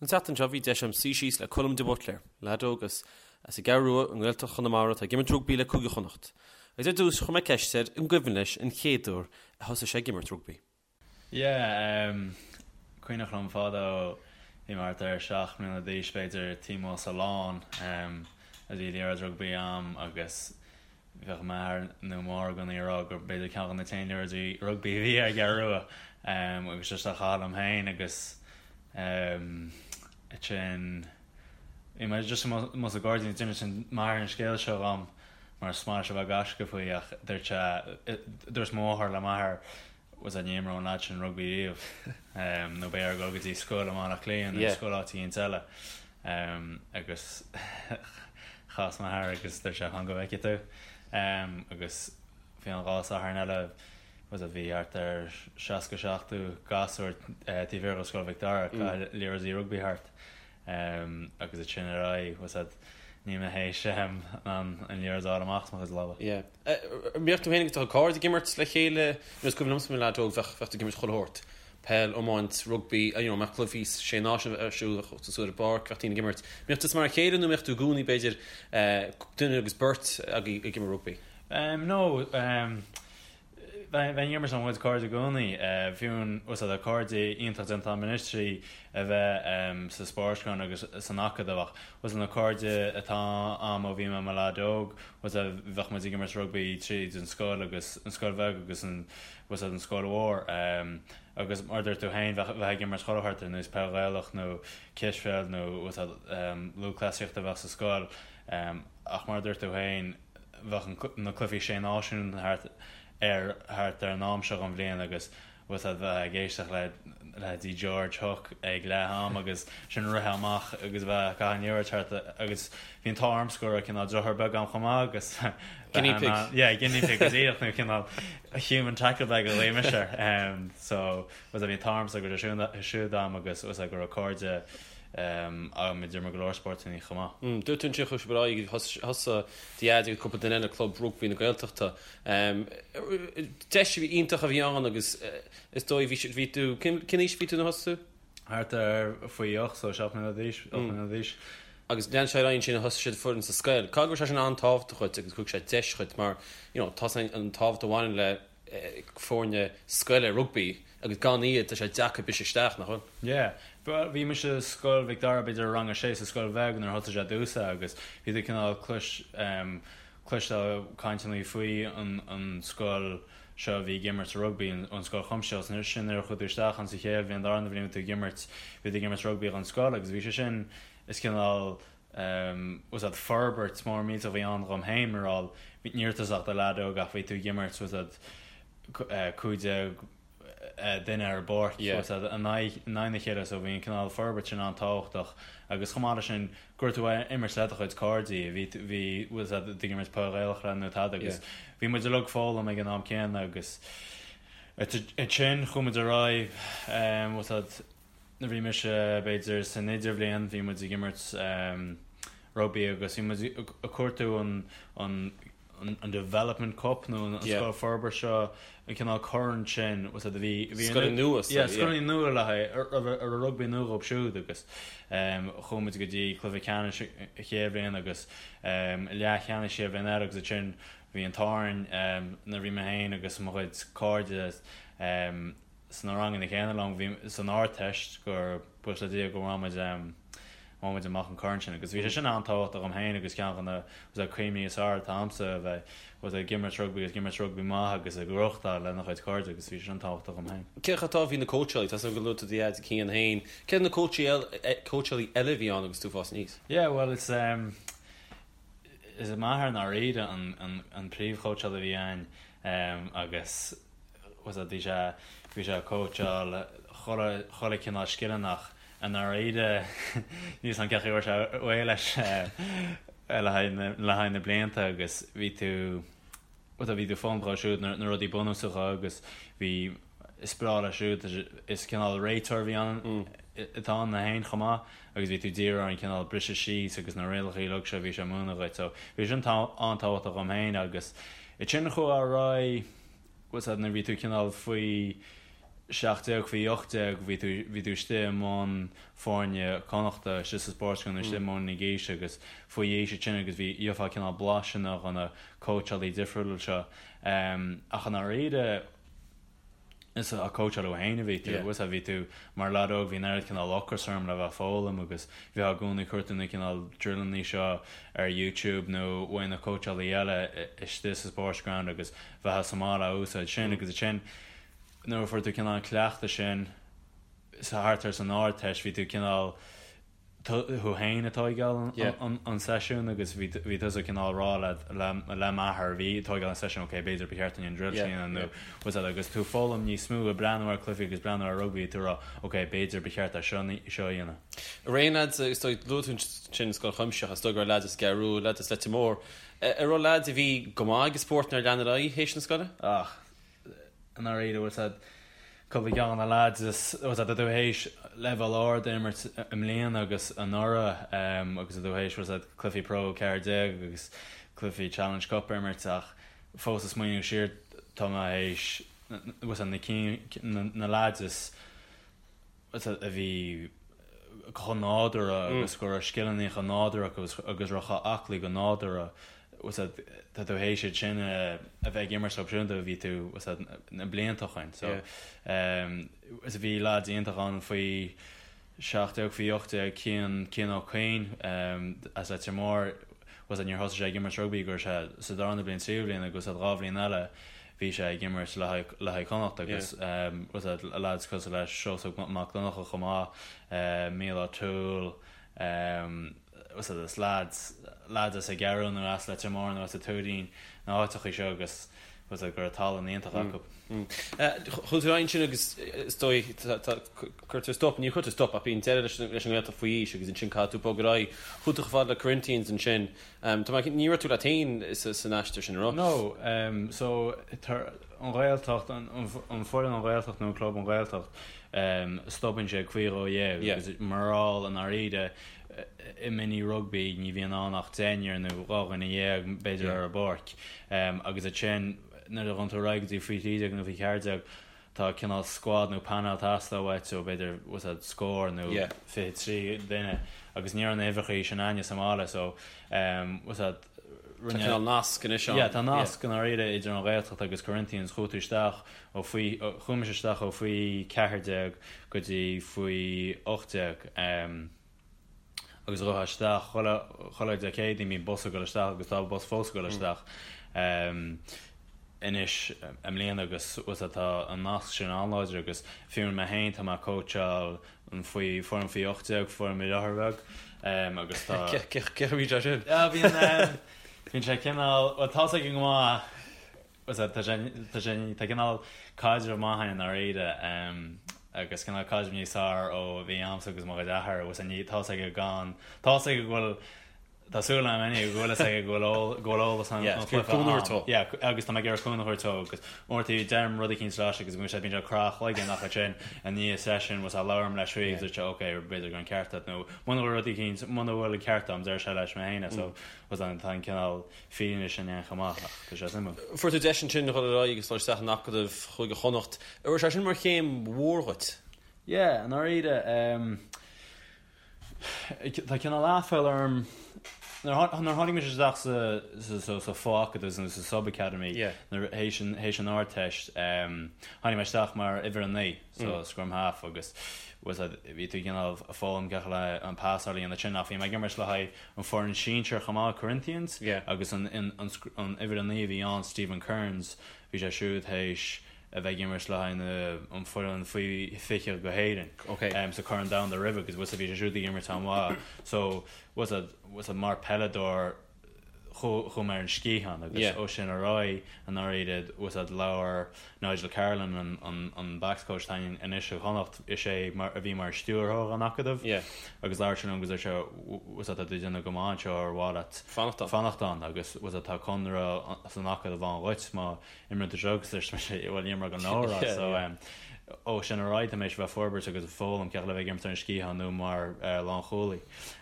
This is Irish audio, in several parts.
An tseachtain seo bhí deis agam suí síos le Colm de Buitléir, leaid óg as as an gCeathrú Rua i nGaeltacht Chonamara atá ag imirt rugbaí le Cúige Chonnacht. Agus ar dtús chuir mé ceist air an gcuimhin leis an chéad uair a thosaigh sé ag imirt rugbaí. Yeah, em, cuimhneach liom fadó, bhí mé thart ar 7 mbliana d'aois b'fhéidir, taobh amuigh sa lawn, em, a bhí liathróid rugbaí a'm agus bheadh m'athair nó máthair i gcónaí ag rá gur b'fhéidir ceann de na t-aon liathróidí rugbaí a bhí ar an gCeathrú Rua, em, agus just á chaitheamh liom féin agus, em, ansin bhí mé just amuigh sa ghairdín, d'inis m'athair an scéal seo dhom mar is maith leis a bheith ag gaisce faoi ach dúirt sé, dúirt mo mháthair le m'athair, bhfuil a fhios a'd ní imreoidh an leaid sin rugbaí riamh nó beidh air dul go dtí scoil i mBaile Átha Cliath nó scoil áit éicint eile agus chas m'athair agus dúirt sé fan go bhfeicfidh tú agus bhí an dhá Satharn eile bhfuil a fhios a'd bhí thart ar 60 70 gasúr taobh thiar de Scoil Mhic Dara ag caitheamh liathróidí rugbaí thart agus ansin ar aghaidh bhfuil a fhios a'd níl mé théis an liathróid a fháil amach as mo chuid lámha. Yeah. An mbíodh tú féin agus do chuid cairde ag imirt le chéile? You know, is cuimhin liomsa mar leaid óg bheadh bheadh tú ag imirt chuile shórt. Peil, iomáint, rugbaí, you know, mbeadh cluichí sé náisiún ar siúl bheadh tú suas ar an bpáirc, bheadh daoine ag imirt. Mbíodh tusa mar a chéile nó mbíodh tú i gcónaí b'fhéidir duine agus beirt agaibh ag imirt rugbaí? No, Bheinn ag imirt le mo chuid cairde i gcónaí. Fiú bhfuil a fhios a'd cairde iontach déanta agam anois trí a bheith sa Spórtlann agus san Acadamh ach bhfuil a fhios a'd na cairde atá a'm ó bhí mé i mo leaid óg, bhfuil a fhios a'd bheadh muid ag imirt rugbaí tríd an scoil agus an scoil bheag agus an bhfuil a fhios a'd an scoil mhór. Agus mar a dúirt tú féin bheadh bheith ag imirt chuile shórt ar nós peil Ghaelach nó cispheil nó bhfuil a fhios a'd lúthchleasaíocht a bheadh sa scoil ach mar a dúirt tú féin, bheadh na cluichí Sé Náisiún thart ar thart ar an am seo den bhliain agus bhfuil a fhios a'd bheith ag éisteacht le leithéidí George Hook ag leath am agus sin rith amach agus bheith ag caitheamh an liathróid thart agus bhí an t-ádh ormsa go raibh cineál deartháir beag agam chomh maith agus Guinea pig. Yeah, guinea pig go díreach nó cineál human tackle bag a ghlaoigh mise air. So bhfuil a fhios a'd bhí an t-ádh ormsa go raibh sé siúd a'm agus bhfuil a fhios a'd go raibh cairde Agam idir mo go leor spórtanna chomh maith. Dúirt tú ansin chuaigh sibh ar aghaidh, thosaigh do dhaid agus cúpla duine eile Club Rugbaí na Gaeltachta. Deis iontach a bhí ann agus is dóigh bhí bhí tú, cén aois a bhí tú nuair a thosaigh tú? Thart ar faoi ocht, so 7 mbliana d'aois, 8 mbliana d'aois. Agus lean sé ar aghaidh ansin thosaigh siad foireann sa scoil. Caithfidh go raibh sé sin an-tábhachtach dhuit agus thug sé deis dhuit mar you know tá an tábhacht a bhaineann le foirne scoile rugbaí agus gan iad tá sé deacair briseadh isteach, nach bhfuil? Yeah. Bhuel, bhí mise i Scoil Mhic Dara b'fhéidir i rang a sé sa scoil bheag nuair a thosaigh sé domhsa agus bhí tú cineál clois em cloisteáil cainteanna faoi an an scoil seo a bhí ag imirt rugbaí, an an scoil chuimsitheach agus sin nuair a chuaigh tú isteach ann sa chéad bhliain darna bhliain bhí tú ag imirt bhí tú ag imirt rugbaí don scoil agus bhí sé sin is cineál bhfuil a fhios a'd forbairt mór millteach a bhí ann dhom féin mar gheall ní raibh tusa ach do leaid óg ach bhí tú ag imirt bhfuil a fhios a'd 15 duine ar an bpáirc bhfuil a fhios a'd in aghaidh in aghaidh na chéile so bhí an cineál forbairt sin an-tábhachtach agus chomh maith leis sin go raibh tú ag imirt le do chuid cairde bhí bhí bhfuil a fhios a'd ag imirt peil Ghaelach le nó tada agus bhí muid uilig ag foghlaim ag an am céanna agus ansin chuaigh muid ar aghaidh bhfuil a fhios a'd Nuair a bhí mise b'fhéidir san idirbhliain bhí muid ag imirt rugbaí agus bhí muid ag cuartú an an an development cup nó an scoil forbartha seo an cineál corn sin bhfuil a fhios a'd a bhí bhí Scoileanna nua yeah scoileanna nua le haghaidh a raibh a raibh rugbaí nua dhóibh siúd agus chuaigh muid go dtí cluiche ceannais an chéad bhliain agus leathcheannais an chéad bhliain eile agus ansin bhí an t-ádh orainn nuair a bhí mé féin agus mo chuid cairde sna ranganna céanna liom, bhí san Ardteist gur buíochas le Dia go bhfuair muid bhain muid amach an corn sin agus bhí sé sin an-tábhachtach dhom féin agus ceann de na bhfuil a fhios a'd cuimhní is fearr atá a'msa a bheith bhfuil a fhios a'd ag imirt rugbaí agus ag imirt rugbaí maith agus ag gnóthachtáil lena chuid cairde agus bhí sé sin tábhachtach dhom féin. Cé chomh tábhachtach a bhí na cóitseálaí? Tá a fhios agam gur luaigh tú do dhaid Cian féin. Cé na cóitseálaí eile a bhí ann agus tú ag fás aníos? Yeah bhuel is is m'athair i ndáiríre an an an príomhchóitseálaí a bhí a'inn agus bhfuil a fhios a'd bhí sé bhí sé ag cóitseáil chuile chuile cineál scileanna ach i ndáiríre níl a fhios a'm cén chaoi a bhfuair sé réidh leis le haghaidh na le haghaidh na blianta agus bhí tú bhfuil a fhios a'd bhí tú ag foghlaim dhó siúd na na rudaí bunúsacha agus bhí is breá leis siúd is cineál réiteoir a bhí ann atá ann féin chomh maith agus bhí tú ag díriú ar an cineál briseadh síos agus na rialacha uilig seo a bhí sé ag múineadh dhuit so bhí sin an-tábhachtach dhom féin agus ansin chuaigh ar aghaidh bhfuil a fhios a'd nuair a bhí tú cineál faoi. 17 faoi 18 bhí tú bhí tú istigh i mbun foirne Connachta istigh sa Sportsground istigh i mbun na gaoise agus faoi aois ansin agus bhí gheofá cineál blaiseanna ó na cóitseálaí difriúla seo ach i ndáiríre is ag cóitseáil thú féin a bhí tú agus bhí tú mar leaid óg bhí an oiread cineál ocras orm le bheith ag foghlaim agus bheifeá i gcónaí ag cuartú na cineál drilleanna seo ar YouTube nó uaidh na cóitseálaí eile istigh sa Sportsground agus bheifeá sa mbaile á úsáid sin agus ansin nuair a fuair tú cineál an cleachtadh sin sa thart ar san Ardteist bhí tú cineál tú féin ag tóigeáil an seisiún agus bhí bhí tusa cineál rá le le le m'athair bhí ag tóigeáil an seisiún ok b'fhéidir ba cheart dúinn an drill sin a dhéanamh nó was that agus tú foghlaim níos mó ag breathnú ar cluichí agus breathnú ar rugbaí tú rá ok b'fhéidir ba cheart é seo seo a dhéanamh. Raon lads is dóigh luaigh tú ansin Scoil Chuimsitheach is dóigh go raibh lads as an gCeathrú Rua lads as Leitir Móir an raibh lads a bhí go maith ag an spórt nár lean ar aghaidh théis na scoile? Ach i ndáiríre, bhfuil 's a'd, cúpla ceann de na lads is, bhfuil 's a'd, tá tú théis leibhéal ard a imirt i mbliana agus anuraidh agus tá tú théis, bhfuil 's a'd, cluichí Pro 14 agus cluichí Challenge Cup a imirt ach fós ag smaoineamh siar tá mé théis, bhfuil 's a'd, na cinn, na lads is, a bhí chomh nádúrtha agus go raibh scileanna chomh nádúrtha acu agus raibh chomh aclaí go nádúrtha, tá tú théis iad sin a bheith ag imirt leo siúd ó bhí tú na blianta ó shin. So bhí lads iontach ann faoi 17, faoi 18, Cian, Cian Ó Cuinn as Leitir Móir, níor thosaigh sé ag imirt rugbaí go raibh sé sa darna bliain, tríú bliain agus dhá bhliain eile bhí sé ag imirt le haghaidh le haghaidh Chonnacht agus was that lads cosúil le Seosamh Mac Donncha chomh maith, Mícheál O'Toole, was that is lads lads as an gCeathrú nó as Leitir Móir nó as an Tuairín na háiteachaí seo agus was that go raibh tallann iontach acu. Chuaigh tú ar aghaidh ansin agus is dóigh cuirtear stop, ní chuirtear stop ach bíonn deireadh leis an nGaeltacht faoi aois agus ansin caithfidh tú bogadh ar aghaidh. Chuaigh tú chomh fada le Corinthians ansin. Tá mé, ní raibh tú leat féin san aistear sin, an raibh? No, so an Ghaeltacht, an foireann an Ghaeltacht nó an club an Ghaeltacht, stopann sé ag faoi 12 agus mar gheall i ndáiríre i mini rugbaí ní bhíonn ann ach deichniúr nó 12 dhuine b'fhéidir ar an bpáirc agus ansin nuair a ghabhann tú ar aghaidh go dtí faoi 13 nó faoi 14 tá cineál squad nó panel ag teastáil uait ó b'fhéidir was that scór nó 23 duine agus ní raibh na huimhreacha sin againne sa mbaile so was that rinne Tá cineál nasc anois ann. Yeah tá nasc i ndáiríre idir an Ghaeltacht agus Corinthians chuaigh tú isteach ó faoi chuaigh mise isteach ó faoi 14 go dtí faoi 18 agus ghabhfá isteach chuile chuile Dé Céadaoin bíonn bus ag dul isteach agus tá bus fós ag dul isteach anois i mbliana agus was that tá an nasc sin an-láidir agus fiú mé féin tá mé ag cóitseáil an faoi foireann faoi 18 foireann mo dheartháir bheag agus tá Cé chaoi a bhíonn sé sin? Yeah bíonn bíonn sé cineál bhuel tá's aige go maith Was that, tá sé, tá sé, tá cineál caidreamh maith againn i ndáiríre agus cineál caidreamh níos fearr ó bhí a'msa agus mo chuid athair was ní, tá's aige gan, tá's aige go bhfuil, tá súil a'm anyway go bhfuil fhios aige go bhfuil eol, go bhfuil eolas an, an chluiche a'm. Yeah, agus tá mé ag iarraidh cúnamh a thabhairt dó agus uaireanta deirim rud eicínt leis agus bíonn sé, bíonn sé ag crá a chloigeann ach ansin i ndiaidh session was that labhraím leis faoi agus deir sé ok b'fhéidir go raibh an ceart agat nó muna bhfuil rud eicínt, muna bhfuil an ceart a'm deir sé leis mé féin é so was that tá an cineál fírinne sin ann chomh maith, ach tá sé suimiúil. Fuair tú deis ansin a dhul ar aghaidh agus dul isteach in Acadamh Chúige Chonnacht. An raibh sé sin mar chéim mhór dhuit? Yeah, i ndáiríre, tá cineál aiféala orm, nuair a tháinig mise isteach sa sa fho-acadamh nó sa sub-academy, nuair théis an théis an Ardteist, tháinig mé isteach mar uimhir a 9. so scrum half agus was that bhí tú cineál ag foghlaim cén chaoi le an pasáil a dhéanamh ansin ach bhí mé ag imirt le haghaidh an foireann sinsir chomh maith Corinthians agus an an an an uimhir a 9 a bhí ann Stephen Kearns bhí sé siúd théis a bheith ag imirt le haghaidh na an foireann faoi 20 go hÉirinn okay. um, sa Corn Domhanda roimhe agus was that bhí sé siúd ag imirt an-mhaith so was that was that mar peileadóir chuaigh mé ar an sciathán agus ó sin ar aghaidh i ndáiríre was that labhair Nigel Carolan an backs coach atá againn anois i gConnacht is é mar a bhí mar stiúrthóir an acadaimh agus labhair sé liom agus dúirt sé was that tá tú ag déanamh go maith anseo ar mhaith leat fanacht ann fanacht ann agus was that tá conradh san acadamh ann dhuit má imríonn tú seo agus dúirt mise bhuel níl mé gan leabhar so. Ó sin ar aghaidh tá mé théis bheith ag forbairt agus ag foghlaim cén chaoi le bheith ag imirt ar an sciathán nó mar lánchúlaí.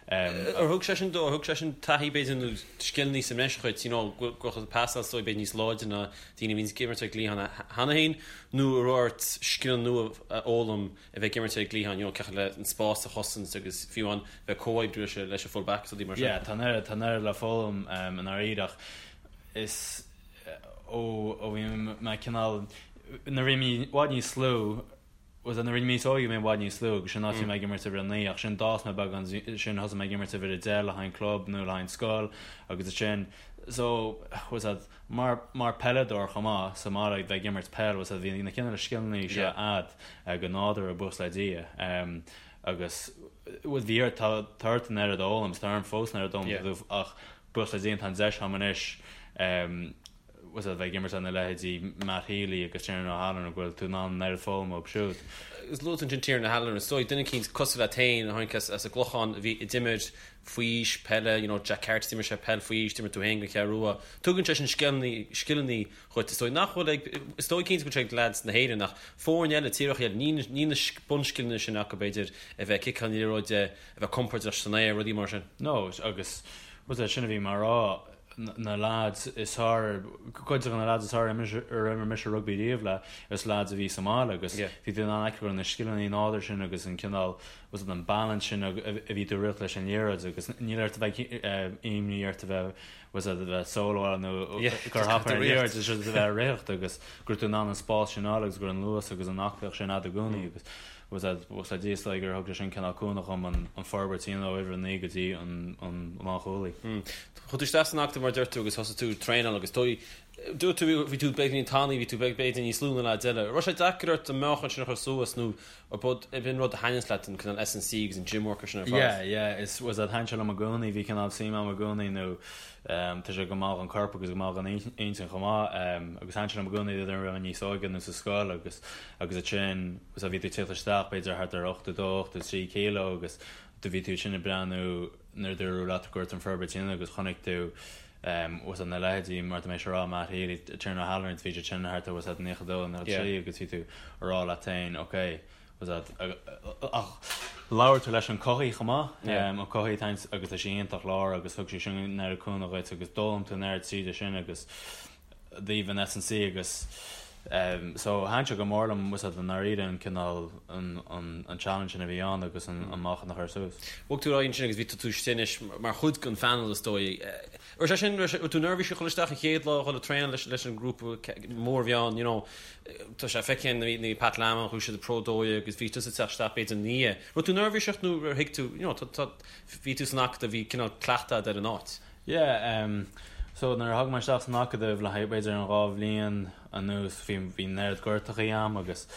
Ar thug sé sin, ar thug sé sin taithí b'fhéidir nó scileanna sa mbreis dhuit, you know, go raibh tú pasáil is dóigh b'fhéidir níos láidre ná daoine a bhíonns ag imirt ar an gcliathán cheana féin nó an raibh ort scileanna nua a fhoghlaim a bheith ag imirt ar an gcliathán, you know, cén chaoi le an spás a chosaint agus fiú amháin bheith ag comhoibriú leis leis an full back is rudaí mar sin. Yeah, tá an oiread, tá an oiread le foghlaim i ndáiríre ach is ó ó bhí mé cineál nuair a bhí mé i bhfad níos lú bhuel nuair a bhí mé níos óige bhí mé i bhfad níos lú agus sin áit bhí mé ag imirt uimhir 9 ach sin d'fhás mé beagán sin thosaigh mé ag imirt uimhir 10 le haghaidh an club nó le haghaidh an scoil agus ansin so bhuel that mar mar peileadóir chomh maith sa mbaile bheith ag imirt peil bhuel that bhí na cineál scileanna seo a'd go nádúrtha buíochas le Dia agus bhuel bhí ort tá tá ort an oiread a fhoghlaim tá orm fós an oiread a fhoghlaim ach Buíochas le Dia tá an deis a'm anois bhuel a bheith ag imirt lena leithéidí Matt Healy agus Tiernan O'Halloran go bhfuil tú in ann an oiread foghlaim uathu siúd. Agus luaigh tú ansin Tiernan O'Halloran, is dóigh duine eicínt cosúil leat féin a tháinig as an gClochán a bhí a d'imir faoi aois peile, you know Jack Carty d'imir sé peil faoi aois, d'imir tú féin don Cheathrú Rua. Tugann sé sin scileanna, scileanna dhuit is dóigh nach bhfuil ag, is dóigh cinnte go bhfuil sé ag leaids na hÉireann ach foirne eile, tíortha eile, níl, níl na bunscileanna sin acu b'fhéidir a bheith ag ciceáil na liathróide, a bheith compordach san aer, rudaí mar sin. No, agus bhuel é sin a bhí mé a rá, na lads is fearr, cuid de na lads is fearr ar imir mise rugbaí riamh le, is lads a bhí sa mbaile agus bhí tú in ann a fheiceáil go raibh na scileanna nádúrtha sin agus an cineál, bhuel an balance sin a bhí tú ag rith leis an liathróid agus níl ort a bheith imní ort a bheith bhuel a bheith solo nó gur thapa ar an liathróid, is a bheith ag ritheacht agus go raibh tú in ann an spás sin a fháil agus go raibh an luas agus an aclaíocht sin a'd i gcónaí agus Bhuel, le Dia is dóigh gur thug sé sin cineál cúnamh dhom an forbairt a dhéanamh ó uimhir 9 go dtí an lánchúlaí. Chuaigh tú isteach san acadamh mar a deir tú agus thosaigh tú ag traenáil agus dóigh, dúirt tú bhí tú beagáinín tanaí, bhí tú b'fhéidir níos lú ná leaids eile. Raibh sé deacair ort an meáchan sin a chur suas nó ab in rud a thaitníonns leat an cineál S&C agus an gym work sin ar fad? Yeah, yeah, is bhuel thaitin sé liom i gcónaí, bhí cineál suim a'm i gcónaí nó Tá sé go maith don chorp agus go maith don intinn chomh maith. Agus thaitin sé liom i gcónaí nuair a bhí mé níos óige nó sa scoil agus agus ansin so bhí tú ag tíocht isteach b'fhéidir thart ar 82, 83 kilo agus do bhí tú ansin ag breathnú nuair a dúradh leat go raibh an forbairt sin agus chonaic tú bhuel na leithéidí mar tá mé ag rá Matt Healy, Tiernan O'Halloran bhí siad sin thart ar bhuel 92, 93 agus bhí tú ag rá leat féin ok Ach labhair tú leis an cothaí chomh maith, an cothaí atá agus tá sé iontach láir agus thug sé sin an oiread cúnamh dhuit agus d'fhoghlaim tú an oiread tríd sin agus i dtaobh an S&C agus so thaitin sé go mór liom bhuel i ndáiríre an cineál an challenge sin a bhí ann agus an meáchan a chur suas. Bhog tú ar aghaidh ansin agus bhí tú istigh anois mar chuid den phainéal is dóigh. Raibh sé sin, raibh tú neirbhíseach dhul isteach an chéad lá dhul ag traenáil leis leis an ngrúpa mór a bhí ann, you know, tá sé feicthe nuair a bhí Pat Lam ann, chuaigh siad i Pro 12 agus bhí tusa ag teacht isteach b'fhéidir ina dhiaidh. Raibh tú neirbhíseach nó ar thuig tú, you know, tá, tá, bhí tú san acadamh, bhí cineál cleachtadh agat ar an áit? Yeah, um, so nuair a tháinig mé isteach san acadamh le haghaidh b'fhéidir an dá bhliain anuas bhí, bhí an oiread gortachaí a'm agus,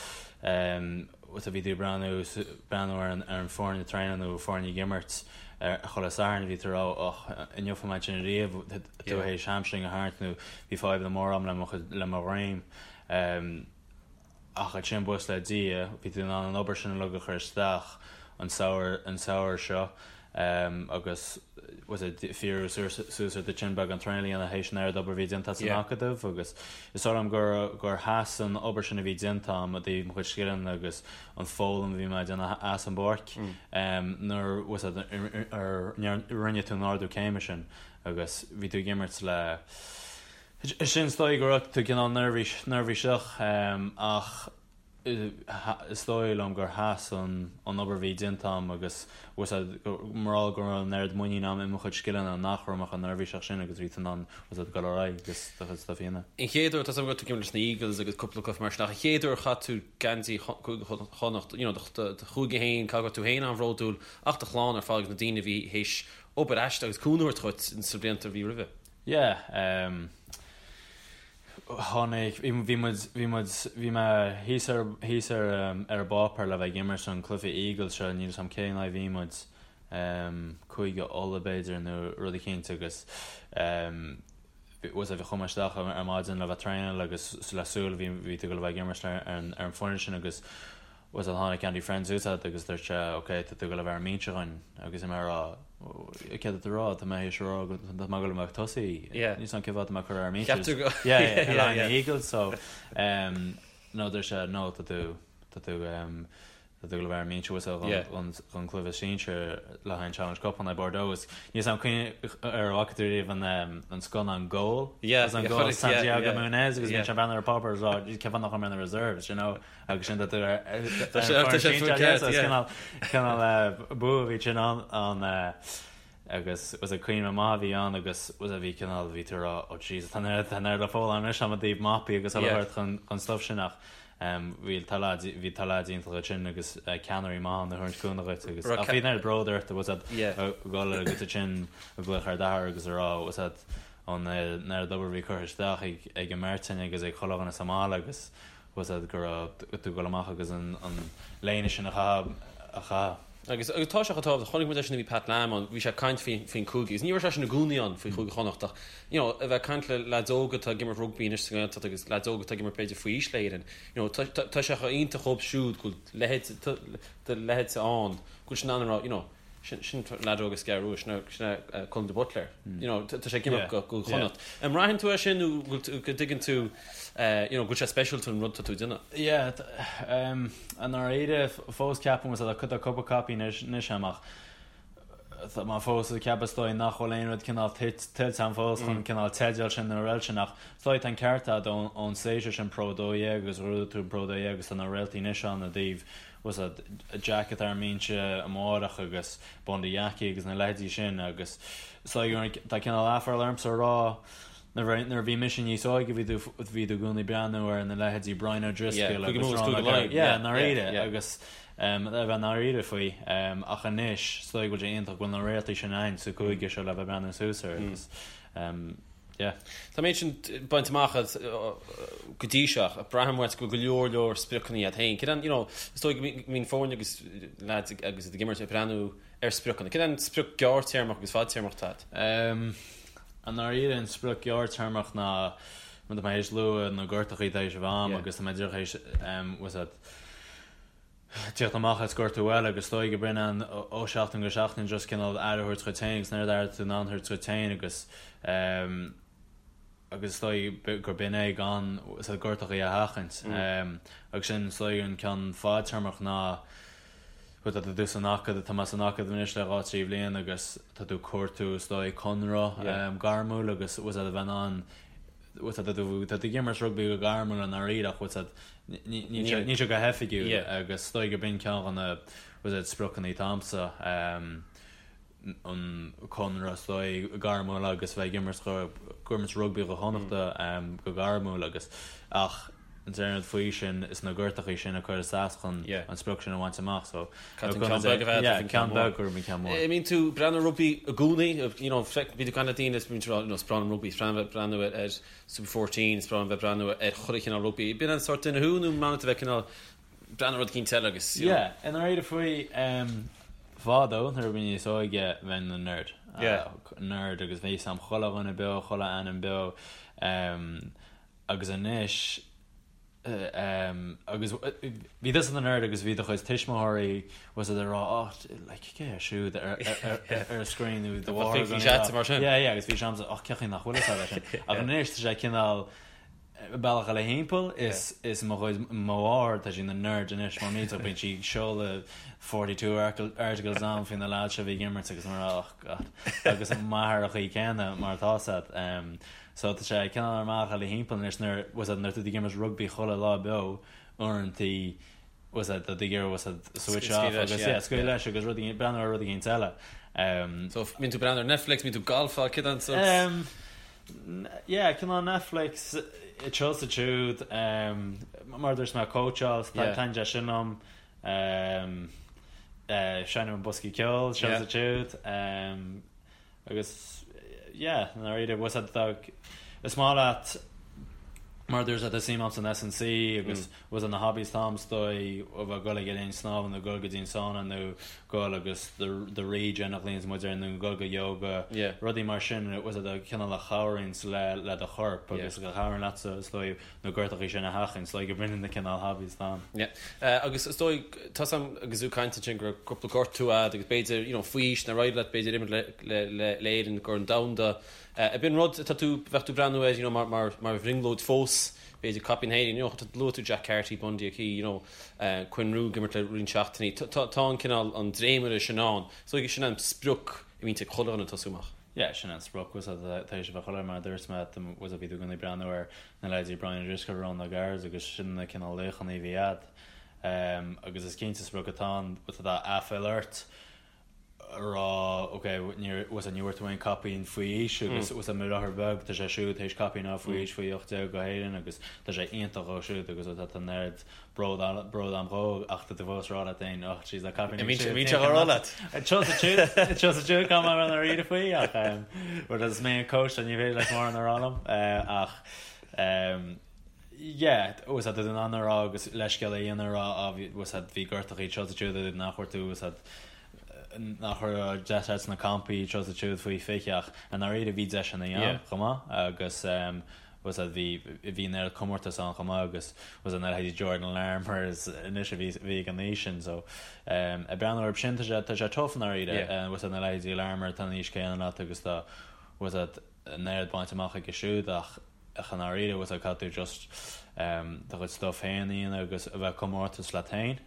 um, so bhí tú ag breathnú, breathnú ar an, ar an foireann ag traenáil nó foireann ag imirt ar chuile Satharn bhí tú ag rá och, an bhfeicfidh mé sin riamh, tú théis hamstring a tharraingt nó bhí fadhbanna móra a'm le mo chuid, le mo dhroim. Ach ansin buíochas le Dia, bhí tú in ann an obair sin uilig a chur isteach an samhradh, an samhradh seo. Agus was it fíorú suas ar do thin beagán traenáil a dhéanamh théis an oiread obair a bhí déanta san acadamh agus is dóigh liom gur gur sheas an obair sin a bhí déanta agam i dtaobh mo chuid scileanna agus an foghlaim a bhí mé ag déanamh as an bpáirc nuair was it ar rinne tú an ardú céime sin agus bhí tú ag imirt le sin is dóigh go raibh tú cineál neirbhíseach ach Is dóigh liom gur sheas an obair a bhí déanta agam agus bhuel mar gheall go raibh an oiread muinín agam i mo chuid scileanna nach raibh mé chomh neirbhíseach sin agus bhí tú in ann bhuel dul ar aghaidh agus do chuid stuif a dhéanamh. An chéad uair, tá a fhios agam go raibh tú ag imirt leis na Eagles agus cúpla cluiche mar sin ach an chéad uair a chaith tú geansaí Chúige Chonnacht, you know, do chúige féin, caithfidh go raibh tú féin an-bhródúil ach do chlann ar fad agus na daoine a bhí théis obair aisteach agus cúnamh a thabhairt dhuit sna blianta a bhí roimhe. Yeah, um. Tháinig, bhí muid, bhí muid, bhí mé thíos ar, thíos ar, ar an bpáipéar le bheith ag imirt an cluiche Eagles seo, níl 'fhios a'm cén aghaidh a bhí muid, Cúige Uladh b'fhéidir nó rud eicínt agus bhuel bhí, chuaigh mé isteach ar maidin le bheith traenáil agus le súil bhí, bhí tú ag dul a bheith ag imirt ar an, ar an bhfoireann sin agus Bhuel tháinig Andy Friend suas chugat agus dúirt sé ok tá tú ag dul a bheith ar an mbinse dhúinn agus bhí mé ag rá céard tá tú a rá tá mé théis a rá go tá mé ag dul a bheith ag tosaí níl 'fhios a'm cén fáth tá mé curtha ar an mbinse yeah yeah yeah yeah Eagles so um, no dúirt sé no tá tú. Tá tú tá tú ag dul a bheith ar an mbinse bhfuil a fhios agat don chluiche sinsir le haghaidh an Challenge Cup in aghaidh Bordeaux agus níl 'fhios a'm ar bhfaca tú riamh an scannán Goal Yeah, an Goal Santiago Muñez agus bíonn sé ag breathnú ar an bpáipéar is rá cén fáth nach bhfuil mé ar na reserves you know agus sin tá tú ar Tá sé tá sé faoi ceart yeah. Cineál bua a bhí sin ann agus was cuimhne maith a bhí ann agus was a bhí cineál bhí tú ag rá oh Jesus tá an oiread le foghlaim anois agam i dtaobh mapaí agus uile shórt chun chun stuff sin ach bhí tá leaids bhí tá leaids iontach ansin agus ceannairí maith ann a thabhairt cúnamh dhuit agus ach bhí an oiread bród ort was ag dul agus ansin ag glaoch ar d'athair agus ag rá was an oiread obair a bhí curtha isteach ag ag an mbeirt againn agus ag chuile dhuine sa mbaile agus was go raibh tú ag dul amach agus an an léine sin a chaitheamh a chaitheamh. Agus agus tá sé chomh tábhachtach, chonaic muid é sin nuair a bhí Pat Lam ann, bhí sé ag caint faoi faoin chúige agus ní raibh seisean i gcónaí ann faoi Chúige Chonnacht ach you know a bheith ag caint le leaids óga atá ag imirt rugbaí anois sa nGaeltacht agus leaids óga atá ag imirt b'fhéidir faoi aois le hÉirinn, you know tá tá tá sé chomh iontach dhóibh siúd go bhfuil leithéid do leithéidse ann go bhfuil siad in ann a rá you know Sin sin leaid óg as an gCeathrú Rua, sin sin é Colm de Buitléar. You know, tá sé ag imirt go go Chonnacht. An mbraitheann tú é sin nó go bhfuil go dtuigeann tú you know go bhfuil sé speisialta an rud atá tú ag déanamh? Yeah, i ndáiríre fós ceapaim tá tá cúpla copaí anois anois agam ach tá mé fós ag ceapadh is dóigh nach bhfuil aon rud cineál tuillte agam fós chun cineál teideal sin nó rud sin ach is dóigh tá an ceart agat ón stage sin Pro 12 agus ghnóthaigh tú an Pro 12 agus tá na réaltaí anois ann i dtaobh bhfuil 's a'd Jack atá ar an mbinse amárach agus Bundee Aki agus na leithéidí sin agus is dóigh tá cineál aiféala ormsa a rá nuair a bhí mise níos óige bhí tú bhí tú i gcónaí breathnú ar na leithéidí Brian O'Driscoll agus Ron O'Gara yeah ndáiríre agus a bheith ndáiríre faoi ach anois is dóigh go bhfuil sé iontach go bhfuil na réaltaí sin ann sa chúige seo le bheith breathnú suas air agus Yeah. Tá an méid sin bainte amach agat go dtí seo ach braithim uait go bhfuil go leor leor spriocanna agat féin. Céard an, you know, is dóigh go mbíonn foirne agus lads agus iad ag imirt ag breathnú ar spriocanna. Céard an sprioc gearrtéarmach agus fadtéarmach atá agat? I ndáiríre an sprioc gearrtéarmach ná mar tá mé théis lua na gortachaí atá théis a bheith a'm agus tá mé díreach théis, bhfuil 's a'd, Tíocht amach as gortú eile agus is dóigh go b'in an ó seachtain go seachtain just cineál aire a thabhairt dhuit féin agus an oiread aire atá tú in ann a thabhairt dhuit féin agus agus is dóigh gur b'in é gan sort gortachaí a sheachaint. Agus sin is dóigh an ceann fadtéarmach ná tá tú san acadamh, tá mé san acadamh anois le 2, 3 bhliain agus tá tú ag cuartú is dóigh conradh gairmiúil agus bhfuil 's a'd a bheith in ann bhfuil 's a'd tá tú tá tú ag imirt rugbaí go gairmiúil i ndáiríre ach bhfuil 's a'd níl sé níl sé go hoifigiúil agus is dóigh gurb in ceann de na bhfuil 's a'd spriocanna atá a'msa an conradh is dóigh gairmiúil agus bheith ag imirt go ag imirt rugbaí do Chonnachta go gairmiúil agus ach an t-aon rud faoi sin is na gortachaí sin a chur as chun an sprioc sin a bhaint amach so Caithfidh an ceann beag a bheith agat roimh an ceann mór. Ceann beag roimh an ceann mór. An mbíonn tú ag breathnú ar rugbaí i gcónaí, you know, bíonn tú ag caint le daoine is bíonn siad ag rá, you know, is breá liom rugbaí, is breá liom bheith ag breathnú ar Super 14, is breá liom bheith ag breathnú ar chuile chineál rugbaí. Bíonn an sórt duine thú nó an maith leat a bheith cineál breathnú ar rud eicínt eile agus, you know. Yeah, i ndáiríre faoi, fadó nuair a bhí mé níos óige bheinn ina nerd. Yeah. Nerd agus bhí 'fhios a'm chuile dhuine beo, chuile ainm beo. Agus anois, agus bhí tusa ina nerd agus bhí do chuid tuismitheoirí bhfuil 's a'd ag rá oh like cé hé siúd ar ar an screen nó do mháthair Bhí sé mar sin. Yeah yeah agus bhí sé a'msa oh cén chaoi nach bhfuil fhios a'd é sin. Ach anois tá sé cineál bealach eile thimpeall is is mo chuid mo mháthair tá sí ina nerd anois mar millteach bíonn sí ag seoladh 42 articles a'm faoi na lads seo a bhí ag imirt agus mar oh god agus m'athair an chaoi céanna mar atá 's a'd. So tá sé cineál ar an mbealach eile thimpeall anois nuair, bhfuil 's a'd, nuair tá tú ag imirt rugbaí chuile lá beo, uaireantaí, bhfuil 's a'd, tá tú ag iarraidh, bhfuil 's a'd, switch off agus, yeah, scaoileadh leis agus rud éigin, breathnú ar rud éigin eile. So mbíonn tú ag breathnú ar Netflix, mbíonn tú ag golfáil, céard an sort? Yeah, cineál Netflix, anseo is ansiúd, mar a dúirt mé, cóitseáil, taitníonn sé sin liom, seinnim an boscaí ceoil, anseo is ansiúd. Agus yeah, i ndáiríre, bhfuil 's a'd, is maith leat mar a dúirt tá suim a'm san S&C agus bhfuil 's a'd na hobbies atá a'm is dóigh a bheith ag dul ag an linn snámha nó dul go dtí an sauna nó dul agus the regen a ghlaonns muid air nó dul go yoga, rudaí mar sin bhfuil 's a'd cineál a chabhraíonns le le do chorp agus a chabhraíonn leatsa is dóigh na gortachaí sin a sheachaint, is dóigh go b'in na cineál hobbies atá a'm. Yeah. Agus is dóigh, tá 's a'm agus tú ag caint ansin go raibh cúpla gortú a'd agus b'fhéidir, you know, faoi aois nár éirigh leat b'fhéidir imirt le, le, le, le Éirinn ag Corn Domhanda. Ab in rud atá tú, bheadh tú ag breathnú air, you know, mar, mar, mar bhrionglóid fós? nós b'fhéidir caipín na hÉireann, you know, luaigh tú Jack Carty, Bundee Aki, you know, Quinn Roux ag imirt le roinnt seachtainí. Tá an cineál, an dréimire sin ann. So sin an sprioc a bhíonn ag chuile dhuine ag tosú amach. Yeah, sin an sprioc, bhfuil a fhios agat, tar éis a bheith chuile mar a dúirt mé, bhfuil a fhios agat, bhí tú i gcónaí ag breathnú ar na leithéidí Brian O'Driscoll, Ronan O'Gara agus sin na cineál laochanna a bhí a'd. Agus is cinnte sprioc atá ann, bhfuil a fhios agat, aiféala ort a rá, ok, níor, bhfuil a fhios agat, ní bhfuair tú aon caipín faoi aois agus bhfuil a fhios agat, mo dheartháir beag, tá sé siúd tar éis caipín a fháil faoi aois faoi 18 go hÉirinn agus tá sé iontach dhó siúd agus bhfuil a fhios agat, tá an oiread bród bród a'm dhó ach tá tú fós ag rá leat féin oh jeez tá caipín ag siúd Bíonn sé á rá leat. Tusa siúd caithfidh mé a bheith i ndáiríre faoi ach bhuel is mé an coach so ní féidir leis mórán a rá liom ach yeah bhfuil a fhios agat tá tú in ann a rá agus leithscéal a dhéanamh a rá á bhí bhfuil a fhios agat bhí gortachaí seo is siúd nach bhfuair tú bhfuil a fhios agat nach raibh deis agat sna campaí seo is siúd faoi 20 ach i ndáiríre bhí deiseanna ann chomh maith agus bhfuil a fhios agat bhí bhí an oiread comórtas ann chomh maith agus bhfuil a fhios agat na leithéidí Jordan Larmour is anois a bhí bhí ag an aois sin so ag breathnú orthu sin tá sé tá sé tough i ndáiríre bhfuil a fhios agat na leithéidí Larmour tá an aois céanna leat agus tá bhfuil a fhios agat an oiread bainte amach aige siúd ach ach i ndáiríre bhfuil a fhios agat caithfidh tú just do chuid stuff féin a dhéanamh agus a bheith ag comórtas leat féin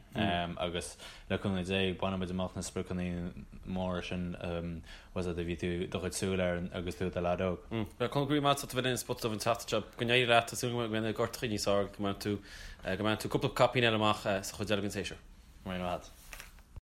agus le cúnamh Dé bainfidh muid amach na spriocanna móra sin bhfuil a fhios agat a bhí tú do chuid súil air agus tú i do leaid óg. Bhuel, Conall, go raibh maith agat as a bheith linn ar Spota Dubh an tseachtain seo. Go n-éirí leat, tá súil agam go mbeidh na gortachaí níos fearr, go mbainfidh tú, go mbainfidh tú cúpla caipín eile amach sa chuid eile den séasúr. Go raibh maith agat.